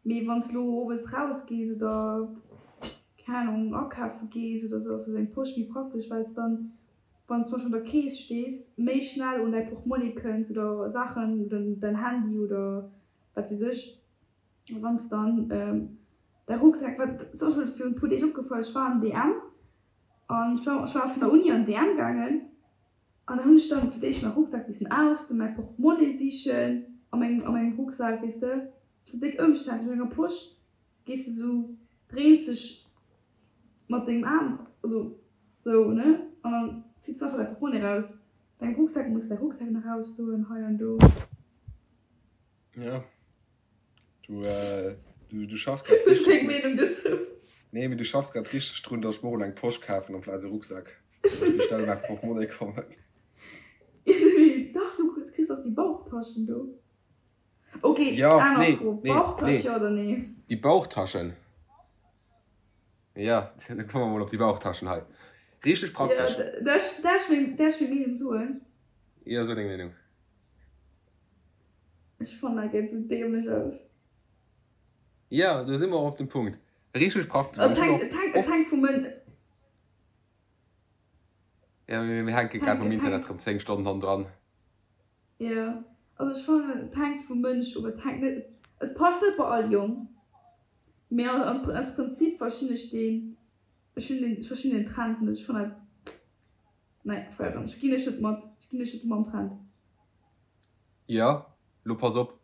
Mee wann s lo owes raus gees oder keng Ahnung akafe gees oder sou ass eng Posch méi praktesch well s dann wann s zum Beispill un der Kees stees méi schnell un däi Portmonnie kënns oder Saachen oder däin Handy oder wat weess ech. A wann s dann däi Rucksak, wat ass och scho virun e puer Deeg opgefall, ech war am DM an ech war ech war vun der Uni an DM gaangen An da hunn ech dann fir d'éischt mäi Rucksak missen ausdoen, mäi Portemonnaie sichen a mengem, a mengem Rucksak, weess de. Sou déck ëmständlech. Mat enger Posch gees de sou, dréins dech mat dengem Aarm, also sou, ne, an dann zitts de einfach däi Portemonnaie raus. Bei engem Rucksak muss de däi Rucksak nach ausdoen, hei an do. Ja. Du, äh, du, du schaffs grad Hues richteg. keng Meenung dozou? Nee, mee du schaffs grad richteg drun, dass ech mer och eng Posch kafen amplaz e Rucksak. Dass ech méi schnell un mäi Portemonnaie kommen. Dach, du kriss och déi Bauchtaschen do. Ok, Ja, aner nee, Fro, nee, Bauchtasch nee. jo oder nee? Déi Bauchtaschen. Ja, da komme mer mol op déi Bauchtaschen hei. Richteg Ja, praktesch. darf ech meng, darf ech meng Meenung soen? Ja, so deng Meenung. Ech fannen dat gesäit sou dämlech aus. Jo, do si mer och op dem Punkt. Richteg praktesch. An Et ech hunn hänkt, och et hänkt, et oft. hänkt vum Mën. Jo, mir mir hänke Et grad hänkt, mam et Internet hänkt. rëm 10 Stonnen hannendran. Jo, also ech fannen et hänkt vum Mënsch of. Et hänkt net, et passt net bei all Jong. Mee am, aus Prinzip verstinn ech deen, ech hunn den, ech verstinn den Trend net. Ech fannen dat, nee, feieren ech, ginn ech net mat, ech ginn ech net mam Trend. Jo, lo pass op,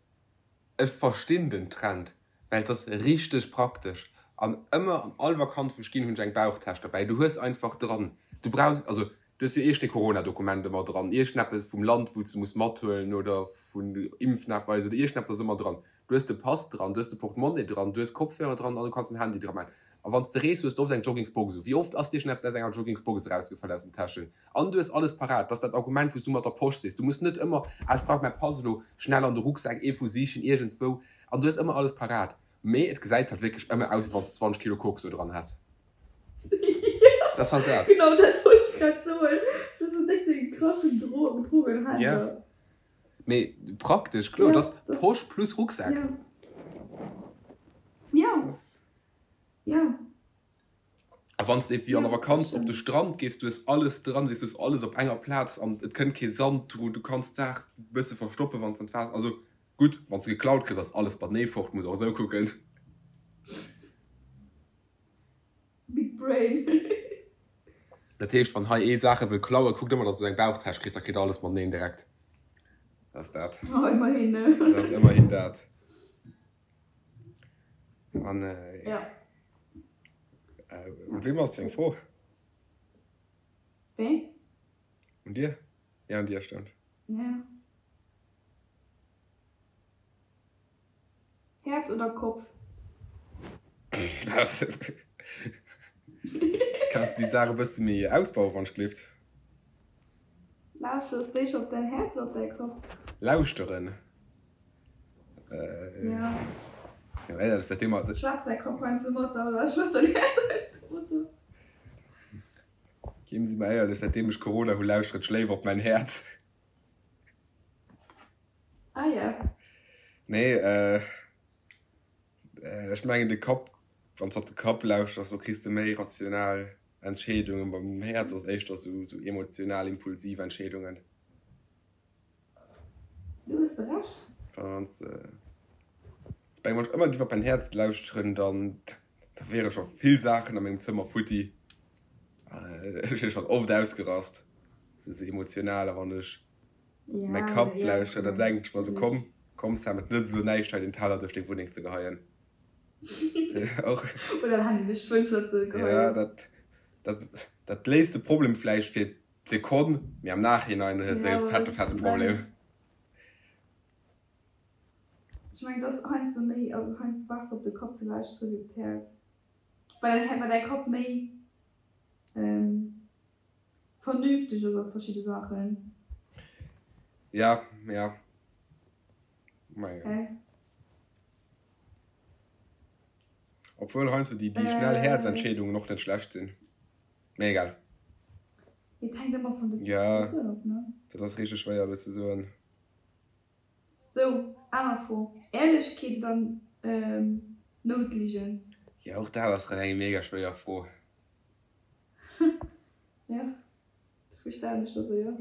ech verstinn den Trend, well et ass richteg praktesch an ëmmer an all Vakanz wou ech ginn hunn ech eng Bauchtäsch derbäi. Du hues einfach dran, du brauchs, also du hues jo iergendee Corona-Dokument ëmmer dran, iergendeppes vum Land wou s de muss mathuelen oder vun Impfnachweis oder iergendeppes ass ëmmer dran. Du hues de Pass dran, du hues de Portemonnaie dran, du hues Kopfhörer dran an du kanns den Handy dra maachen. A wann s de rees, hues de oft eng Joggingsbox u. Wéi oft ass dir schonn eppes aus enger Joggingsbox erausgefall aus den Täschen? An du hues alles parat. Dat ass dat Argument, wou s du mat der Posch sees. Du muss net ëmmer, ah, ech brauch mäi Pass elo schnell an de Rucksak, ee vu sichen iergendswou. An du hues ëmmer alles parat. Mee et gesäit halt wierklech ëmmer aus, wéi wann s de 20 Kilo Koks do dran häss. Dat ass halt dat. Genau dat wollt ech grad soen. Du hues esou déck de krassen Drogenhändler. Ja. Mee praktesch, kloer, Ja, et ass das, Posch plus Rucksak. ja. Ja, ja. A wann s de wéi an der Ja, dat Vakanz op de stëmmt. Strand gees, du hues alles dran, weess, du hues alles op enger Plaz an et kënnt kee Sand drun, du kanns d'Saach e bësse verstoppen, wann s an d'Waasser, also gutt, wann s de geklaut kriss, ass alles matenee fort, muss och esou kucken. Brain. Dat heescht, wann hei ee Saache wëll klauen, kuckt ëmmer, dass e sou eng Bauchtäsch kritt, da kritt e alles mateneen direkt. Dat ass dat. Oh, ëmmerhin, ne? Dat ass ëmmerhin dat. An, Ja. Un weem ass fir eng Fro? Wéi? Un dir? Ja, un dir, stëmmt. Ja. Häerz oder Kopf? Was? Kanns déi Saach e bësse méi ausbauen, wann ech gelift? Lauschters d'éischt op däin Häerz oder op däi Kopp? Lauschteren? Ja. Jo, éierlech, säitdeem mer. Schwätzt däi Kopp heiansdo mat der oder schwätzt däin Häerz heiansdo mat der? Ginn si mer éierlech, säitdeem ech Corona hu lauschteren ech léiwer op mäin Häerz. Ah ja. Nee, ech mengen de Kapp, wann s de op de Kapp lauschters, do kriss de méi rational Entscheedungen. Beim Häerz ass éischter sou sou emotional, impulsiv Entscheedungen. Do hues de Recht. Wann s de, ech mengen, wann ech ëmmer géif op mäin Häerz lauschteren, dann da wiere scho vill Saachen a mengem Zëmmer futti. Ech wier schonn oft ausgerast, sou sou emotional, a wann ech Mäi Kapp lauschtert, da denken ech mer sou, komm, komm Sam, et nëtzt elo näischt hei den Teller duerch deng Wunneng ze geheien. Oder den Handy duerch d'Fënster ze geheien. Ja, dat, dat, dat léist de Problem vläicht fir d'Sekonn, mee am Nachhinein hues de e fette, fette Problem. Ech mengen, et ass heiansdo méi, also heiansdo besser op de Kapp ze lauschteren wéi op d'Häerz, well well däi Kapp méi Vernünfteg ass a verschidde Saachen. Ja, ja. Ma ja. Okay. Obwuel heiansdo déi, déi schnell Häerzentscheedungen och net schlecht sinn. Mee egal. Et hänkt ëmmer vun der Ja, Situatioun of, ne? dat ass richteg schwéier elo ze soen. Sou, aner Fro, Ehrlechkeet oder Noutligen? Ja, och dat ass rem eng mega schwéier Fro. Ja, dofir stellen ech der se jo.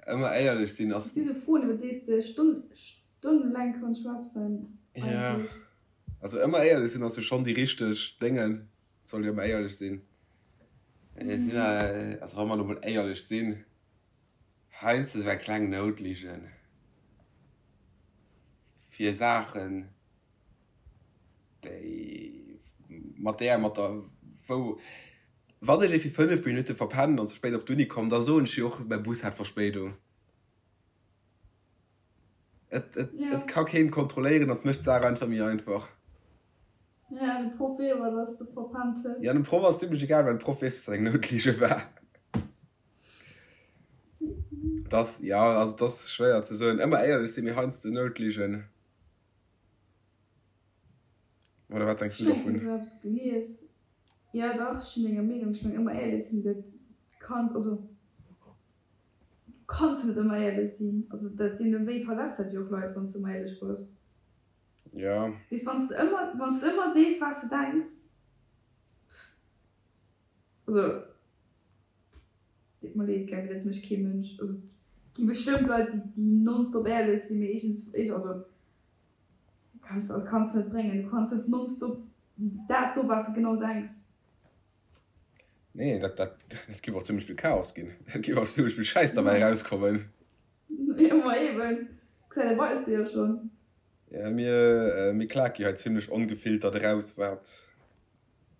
Ëmmer éierlech sinn ass. Dat si sou Froen, iwwer déi s de stonnelaang kanns schwätzen Ja, eigentlech. also ëmmer éierlech sinn ass jo schonn déi richteg Déngen. Et soll jo ëmmer éierlech sinn. Si mer, also wa mer elo mol éierlech sinn, heiansdo sou eng kleng Noutligen fir Saachen. Déi mat där, mat der, wou, wann ech ee fir 5 Minutte verpennen an ze spéit op d'Uni kommen, da soen ech jo och, mäi Bus hat Verspéidung. Et, et, et ka keen kontrolléieren an et mécht d'Saach einfach méi einfach. Ja, de Proff weess awer, dass de verpennt hues. Ja, dem Proff ass zimmlech egal, well de Proff weess, dass dat eng Noutlige war. Dass, ja, also et ass schwéier ze soen. Ëmmer éierlech sinn, mee heiansdo Noutligen. Oder wat denks du dovun? Ech hunn esou eppes gelies. Jo dach, ech sinn denger Meenung. Ech mengen ëmmer éierlech sinn, dat kann, also du kanns net ëmmer éierlech sinn. Also dat deene wéi verletzt dat jo och Leit, wann s de ëmmer éierlech bass. Jo. Weess, wann s de ëmmer, wann s de ëmmer sees wat s de denks, also deet mer leed, gell, mee dat mécht kee Mënsch. Also et gi bestëmmt Leit, déi déi nonstop éierlech sinn, mee iergends, also Kanns, also kanns net bréngen. Du kanns net nonstop dat soen, wat s de genau denks. Nee, dat, dat, dat géif och zimmlech vill Chaos ginn. Et géif och zimmlech vill Schäiss derbäi erauskommen. Jo, ma eben. Gesäit ee bei eis jo schonn. Ja, mir, mir klake jo hei zimmlech ongefiltert eraus, wat,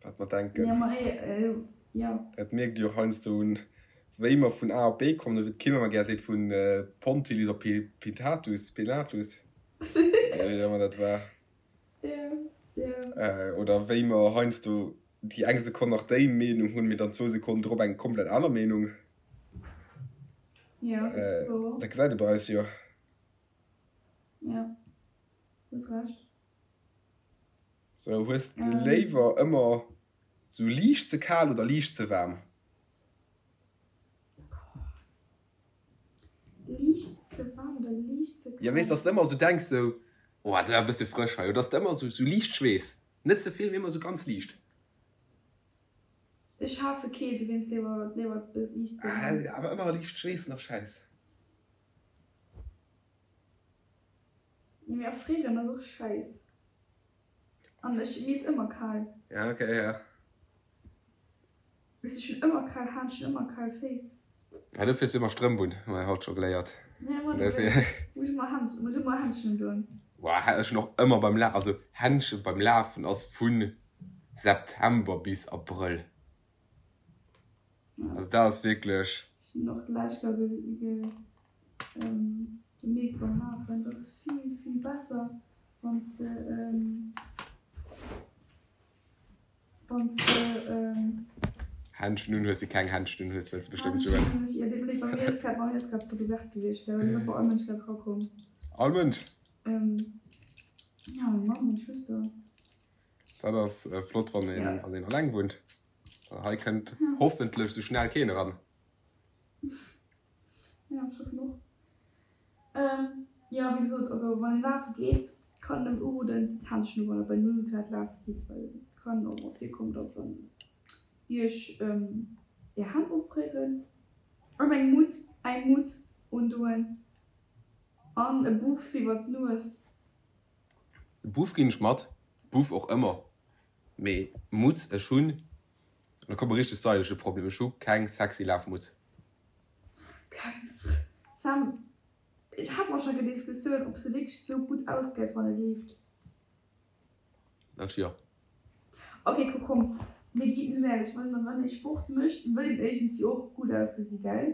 wat mer denken. Ja, ma eh, jo. Dat mierkt Dir och heiansdo un, wéi mer vun A op B kommen, oder wéi d'Kim ëmmer gär seet, vu Pontilis op Pitatus, Pilatus, wéi ëmmer dat war. Jo, jo. Oder wéi mer heiansdo déi eng Sekonn nach déi Meenung hunn, mee dann zwou Sekonnen drop eng komplett aner Meenung. Jo, wouer. Dat gesäit ee bei eis jo. Jo, hues Recht. Sou, hues de léiwer ëmmer sou liicht ze kal oder liicht ze waarm? Liicht ze waarm oder liicht ze kal? Jo, weess, dass de ëmmer sou denks sou, oh, dat ass e bësse frësch hei, oder dass de ëmmer sou sou liicht schweess, net ze vill, mee ëmmer sou ganz liicht. Ech haasse Keelt, dowéinst léiwer léiwer liicht ze waarm. Awer ëmmer liicht schweessen ass schäiss. Jo mee erfrieren ass och scheiss. An ech, mir ass ëmmer kal. Ja ok ja. Ech hunn ëmmer kal Hänn, ech hunn ëmmer kal Féiss. Ja, dofir hues du ëmmer Strëmp un, hu mer haut scho geléiert. Ja, ma dofir muss ech ëmmer Händschen, muss ech ëmmer Händschen undoen. Boah, ech hunn och ëmmer beim La, also Händschen beim Lafen ass vu September bis Abrëll. Also dat ass wierklech. Ech hunn och d'lescht Joer gemierkt beim Lafen, dat ass vill, vill besser, wann s de. Wann s de. Händschen un hues, wéi keng Händschen un hues, wëlls de bestëmmt soen. Händschen hunn ech, jo, deet mir leed, bei mir ass grad, bei mir ass grad d'Porte ouverte gewiescht, da ass net bei all Mënsch grad erakomm. All Mënsch? Jo, meng Mamm, meng Schwëster. Dat ass flott, wann een, wann een alleng wunnt. Hei kënnt hoffentlech sou schnell keen eran. Jo, ech hoffen och. Jo, wéi gesot, also wann een lafe geet, kann een nëmmen uroden, d'Händschen u wann der bei 0 Grad lafe gitt, well et kann och mol virkommen, dass dann iech är Hänn offréieren. An eng Mutz, eng Mutz undoen an e Buff iwwer d'Nues. E Buff ginn ech mat, Buff och ëmmer, mee Mutz, ech hunn, an da kommt e richteg stylesche Problem, ech hu keng sexy Lafmutz. Sam, ech hat mer schon eng Diskussioun ob se wierklech sou gutt ausgesäit wann e leeft. Ech jo. Ok kuck komm mir gi sinn éierlech, wann wann ee Sport mécht wëll een iergendwéi och gutt ausgesi gell?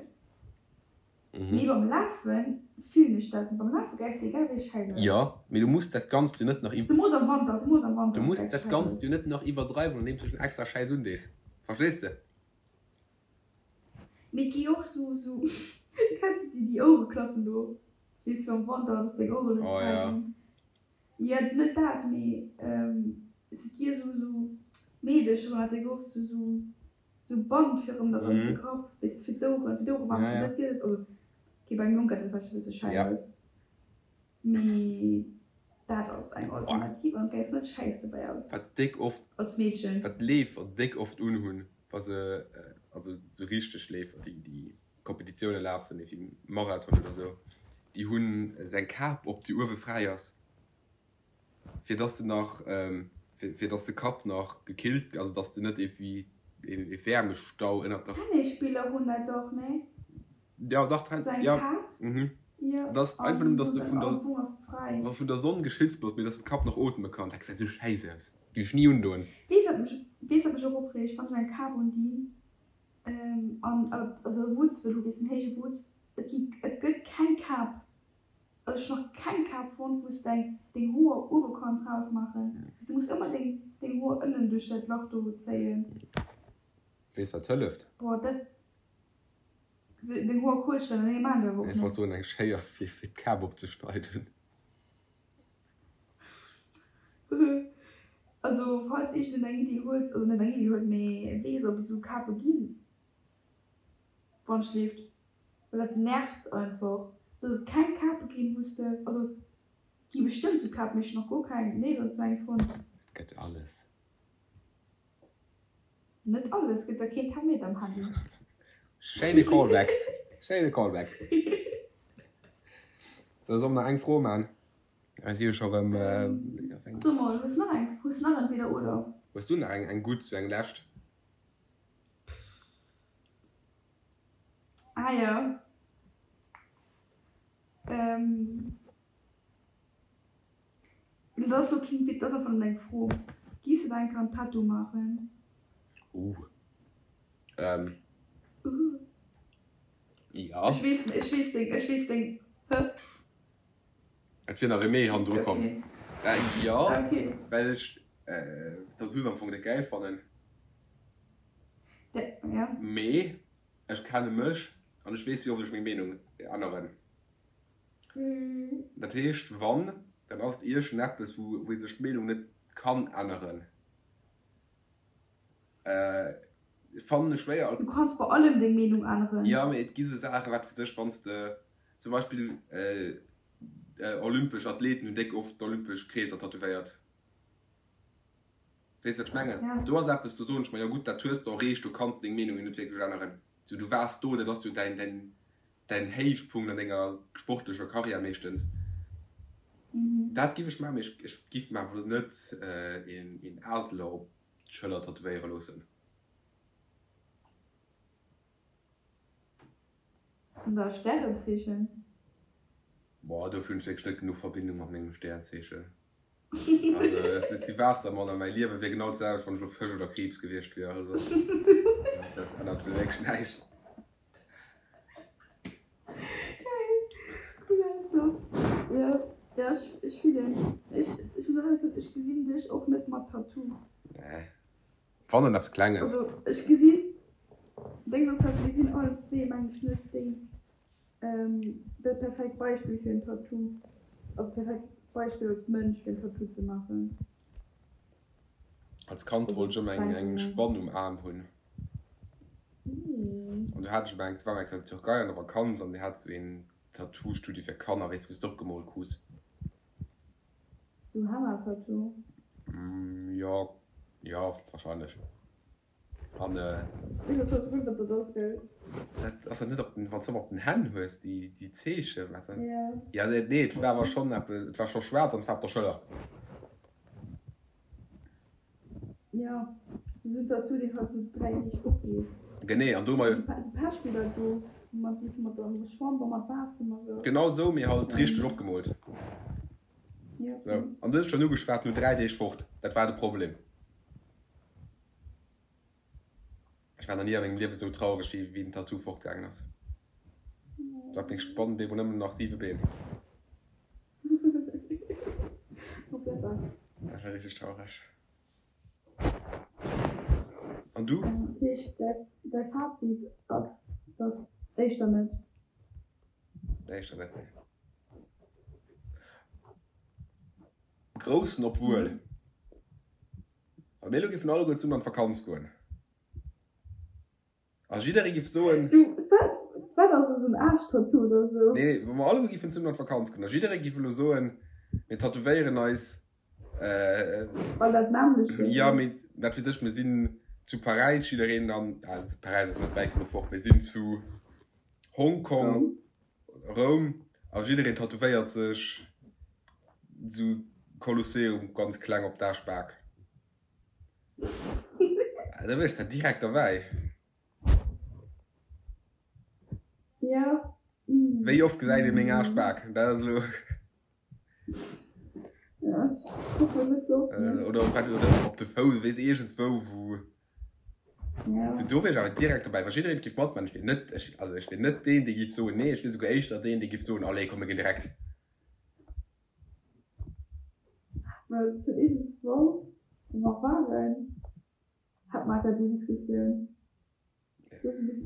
Mee beim Lafen fillen ech dat net, beim Lafe gesäis de egal wéi schäiss aus. Jo, mee du muss dat Ganzt jo net nach iw. Zemools am Wanter, zemools am Wanter Du muss gesäis dat schäiss Ganzt aus. jo net nach iwwerdreiwen andeems du dech extra schäiss undees, verstees de? Mee et gi och sou, sou, kenns de déi, déi Ouereklappen do, weess du, am Wanter, dass deng Oueren net Oh kal ja. ginn. Jo, net dat, mee et gi sou, sou Meedecher hunn dat déck oft, sou, sou, sou Band fir ëm der ëm de Kapp, weess de, fir d'Oueren, fir d'Ouere waarm ze, dat gëtt et, also okay, bei engem Jong gëtt dat vläicht e bësse schäi Ja. aus. Mee dat ass eng Alternativ an et gesäis net schäiss dobäi aus. Wat déck oft, Als Meedchen. wat d'Leefer déck oft unhunn, wa se, also sou richteg Leefer, déi déi Kompetitioune lafen, wéi Marathon oder sou, déi hunn esou eng Kap op, déi uewe fräi ass, fir dass de nach, fir dass de Kapp nach gekillt, also dass de net iergendwéi ee Wäermestau ënnert der. Tennisspiller hunn dat dach, nee? Ja, dach, Sou eng ja, Kap? mhm. Jo, Dat ass einfach an nëmmen, dass de vun der, am Fong ass et fräi. vun der Sonn geschützt bass, mee dass de Kapp nach ootme kann. Dat gesäit sou schäiss aus. Géif ech ni undoen. Weess wat mech, weess wat mech och opreegt, wann ech eng Kap undinn, an, also e Wutz wëll hu, weess en héije Wutz, et gi, et gëtt keng Kap, also ech hunn nach keng Kap fonnt, wou s däin, deng Hoer uewe kanns rausmaachen. Du muss ëmmer deng, deng Hoer ënnen duerch dat Lach do zéien. Weess wat hëlleft? Boah, dat. Seng Hoer kuerschelen, nee maan ech awer och Ech wollt net. soen eng Schéier fir fir d'Kap opzeschneiden. Also falls iergend een eng Iddi huet, also net eng Iddi huet, mee weess ob et esou Kape ginn, wann schleeft, well dat nervt einfach, dass et keng Kape ginn wou s de, also et gi bestëmmt esou Kapen, mee ech hunn nach guer keng, néierens esou eng fonnt. Et gëtt alles. Net alles, gëtt der keen Thermometer am Handy. Schéine Callback, schéine Callback. Sou, soll mer nach eng Fro man? Mir si jo scho rëm. So mol, hues nach eng, hues nach entweder oder? Hues du nach eng, eng gutt, sou eng lescht? Ah jo. Dat ass lo keen Witz, dat ass einfach nëmmen eng Fro. Giss de der eng Kéier en Tattoo maachen? Uh. Ähm. Uh. Ja. Ech weess, ech weess deng, ech weess deng, hä? Et wier nach e Mee hannendru komm. Okay. Äh, jo, Okay. well ech Tattoos am Fong net gäil fannen. De, ja. Mee ech kenne mech an ech weess, wéi oft ech meng Meenung änneren. Dat heescht, wann, dann ass et iergendeppes, wou ee sech d'Meenung net kann änneren. Fannen ech schwéier als. Du kanns bei allem deng Meenung änneren. Jo, mee et gi sou Saachen, wat weess ech, wann s de zum Beispill olympesch Athleten hunn déck oft d'olympesch Kreeser tätowéiert. Weess wat ech mengen? Do ass eppes, do soen ech mer, jo gutt, dat hues de erreecht, do kanns de deng Meenung jo net wierklech änneren. Sou, du waars do, dat ass jo däin, däin. Däin Héichpunkt an denger sportlecher Karriär meeschtens. Dat giff ech maachen, mee ech giff mer awer net een Adler op d'Schëller tätowéiere loossen. An der Stärenzeechen? Boah, dofir hunn ech wierklech net genuch Verbindung mat mengem Stärenzeechen. Also ech si Waassermann a mäi Liewe wier genau d'selwecht, wann ech elo Fësch oder Kriibs gewiescht wier. Also dat ännert sou wierklech näischt. Geil, cool Ausso. Jo, jo, ech, ech fillen. Ech, ech muss awer soen, ech gesinn dech och net mat Tattoo. Nee, wann dann eppes Klenges. Also ech gesinn, deng ass halt, mir sinn allen zwee meng ech net déi, dat perfekt Beispill fir en Tattoo, also perfekt Beispill als Mënsch fir en Tattoo ze maachen. Als Kand wollt ech ëmmer eng eng Spann um Aarm hunn. An du hat ech ëmmer eng, war eng Kéier an der Türkei an der Vakanz an déi hat sou een Tattoo-Studio fir Kanner, weess wou s de opgemoolt krus. Sou Henna-Tattoo? Jo, jo, wahrscheinlech. An Ech weess net wat dat ass, gell? Dat ass dat net op den, wann s de ëmmer op den Hänn hues, déi déi Zeechen, wat dat? Jo. Ja, nee, nee, et war awer schonn eppes, et war scho schwaarz an et war op der Schëller. Jo, esou en Tattoo, deen halt no 3 Deeg opgeet. Genee, an do mei. Déi Pechbiller do, mat déi mat der Chamber mat Waasser a sou. Genau esou, mee halt richteg opgemoolt. Jo, Sou, an du hues et schonn ugeschwat, no 3 Deeg fort, dat war de Problem. Ech war nach ni a mengem Liewe sou traureg wéi wéi den Tattoo fortgaangen ass. Do hat meng Spann bemol nëmmen nach 7 Been. Dat war richteg traureg. An du? Dat heescht däi Fazit ass, dass éischter net? Éischter net, nee. Groussen obwuel. Wa mir elo géifen alleguer zesummen an d'Vakanz goen a jidderee giff soen. Du, wat, wat ass esou en Aarschtattoo oder esou? Nee, nee, wa mer alleguer géifen zesummen an d'Vakanz goen a jidderee giff elo soen, mir tätowéieren eis. Well dat nämmlecht ass. Jo, mee wat weess ech, mir sinn zu Paräis, jiddereen an, Paräis ass net wäit genuch fort, mir sinn zu Hongkong. Roum a jiddereen tätowéiert sech sou Kolosseum ganz kleng op d'Aarschbak. Da wier ech da direkt derbäi. Jo. Wéi oft gesäit ee meng Aarschbak? Dat ass elo. Ja, ech kucken net sou oft, ne. Oder op de Fouss, weess iergendswou wou. Ja. Sou, do wier ech awer direkt dobäi, wa jiddereen giff matman. Ech wier net, ech, also ech wier net deen, dee giff soen, nee, ech wier souguer éischter deen, dee giff soen, allez, komm, mir ginn direkt. Well vun iergendswou, wou mer waren, hat mer awer déi Diskussioun.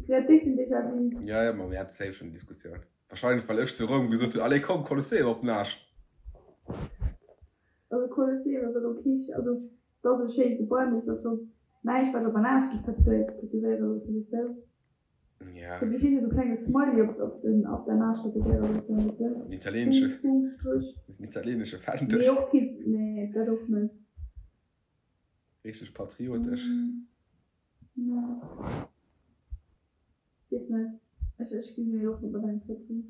Déck den Déjà-vu. Ja, ja, ma mir hate safe schonn déi Diskussioun. Wahrscheinlech, well ech zu Roum gesot hunn, allez, komm, Kolosseum op den Aarsch. Also Kolosseum ass elo kee, also et ass e schéint Gebai, mee et ass lo näischt wat op en Aarsch géif tätowéiere loossen, weess de? Ja. Do géif jiddereen esou klenge Smiley op op den op den Aarsch tätowéiere loossen, weess de? Den italieenesche, Punkt, Punkt, Stréch. den italieenesche Fändel. Nee, och kee, nee, dat och net. Richteg patriotesch. Nee. Weess net. Ech ech ginn mir och net mat engem Tattoo.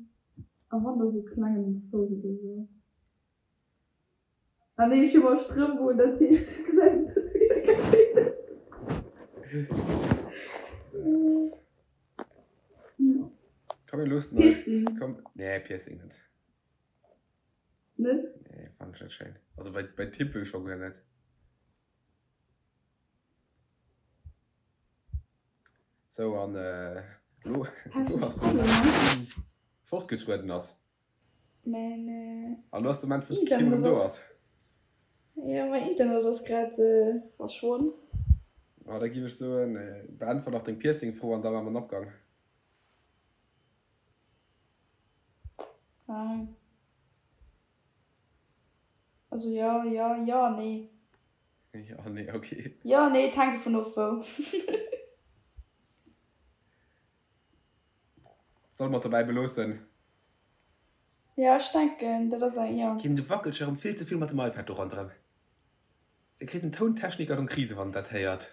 A wann da sou klengen um Fouss oder sou. Ah nee, ech hu mer Strëmp un, dat heescht ech gesäit den Tattoo jo guer net. Komm mir loossen eis. Piercing? Komm, nee Piercing net. Net? Nee, fannen ech net schéin. Also bei bei Tippel scho guer net. Sou, an elo ass de Moment, wou fortgetrueden ass. Mäin An elo ass de Moment, wou d'Kim erëm do ass. Jo, mäin Internet ass grad verschwonn. Ma da giff ech soen, beäntwert nach deng Piercing-Fro an da maache mer den Abgang. Also jo, jo, jo, nee. Jo, nee, ok. Jo, nee, et hänkt dovun of wou. Solle mer et dobäi beloossen? Jo, ech denken, dat ass eng, jo. Kim, du wackels erëm vill ze vill mat dem iPad do ronderëm. Da kritt den Tountechniker erëm Krise wann en dat héiert.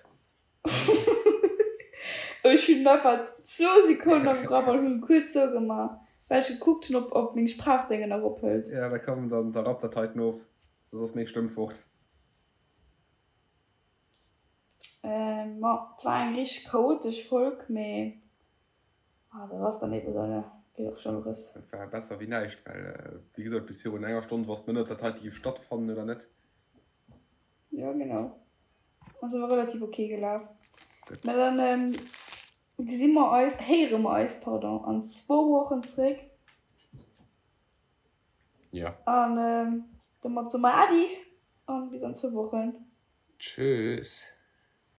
Ech hunn einfach zwou Sekonnen am Grapp an hunn kuerz sou gemaach, well ech gekuckt hunn, ob ob meng Sprachdéngen nach ophëlt. Ja, da komm, dann da rapp dat heiten of, soss ass meng Stëmm fort. Ma et war eng richteg chaotesch Folg, mee dat ass dann eben esou, ne? Geet och Schlëmmeres. Dat war besser wéi näischt, well wéi gesot, bis virun enger Stonn wosst mer net, ob dat heite géif stattfannen oder net. Jo, genau. Ass awer relativ ok gelaf. Mä dann gesi mer eis, héiere mer eis, pardon, an zwou Wochen zréck. Jo. An domat soe mer Äddi an bis an zwou Wochen. Tschüss.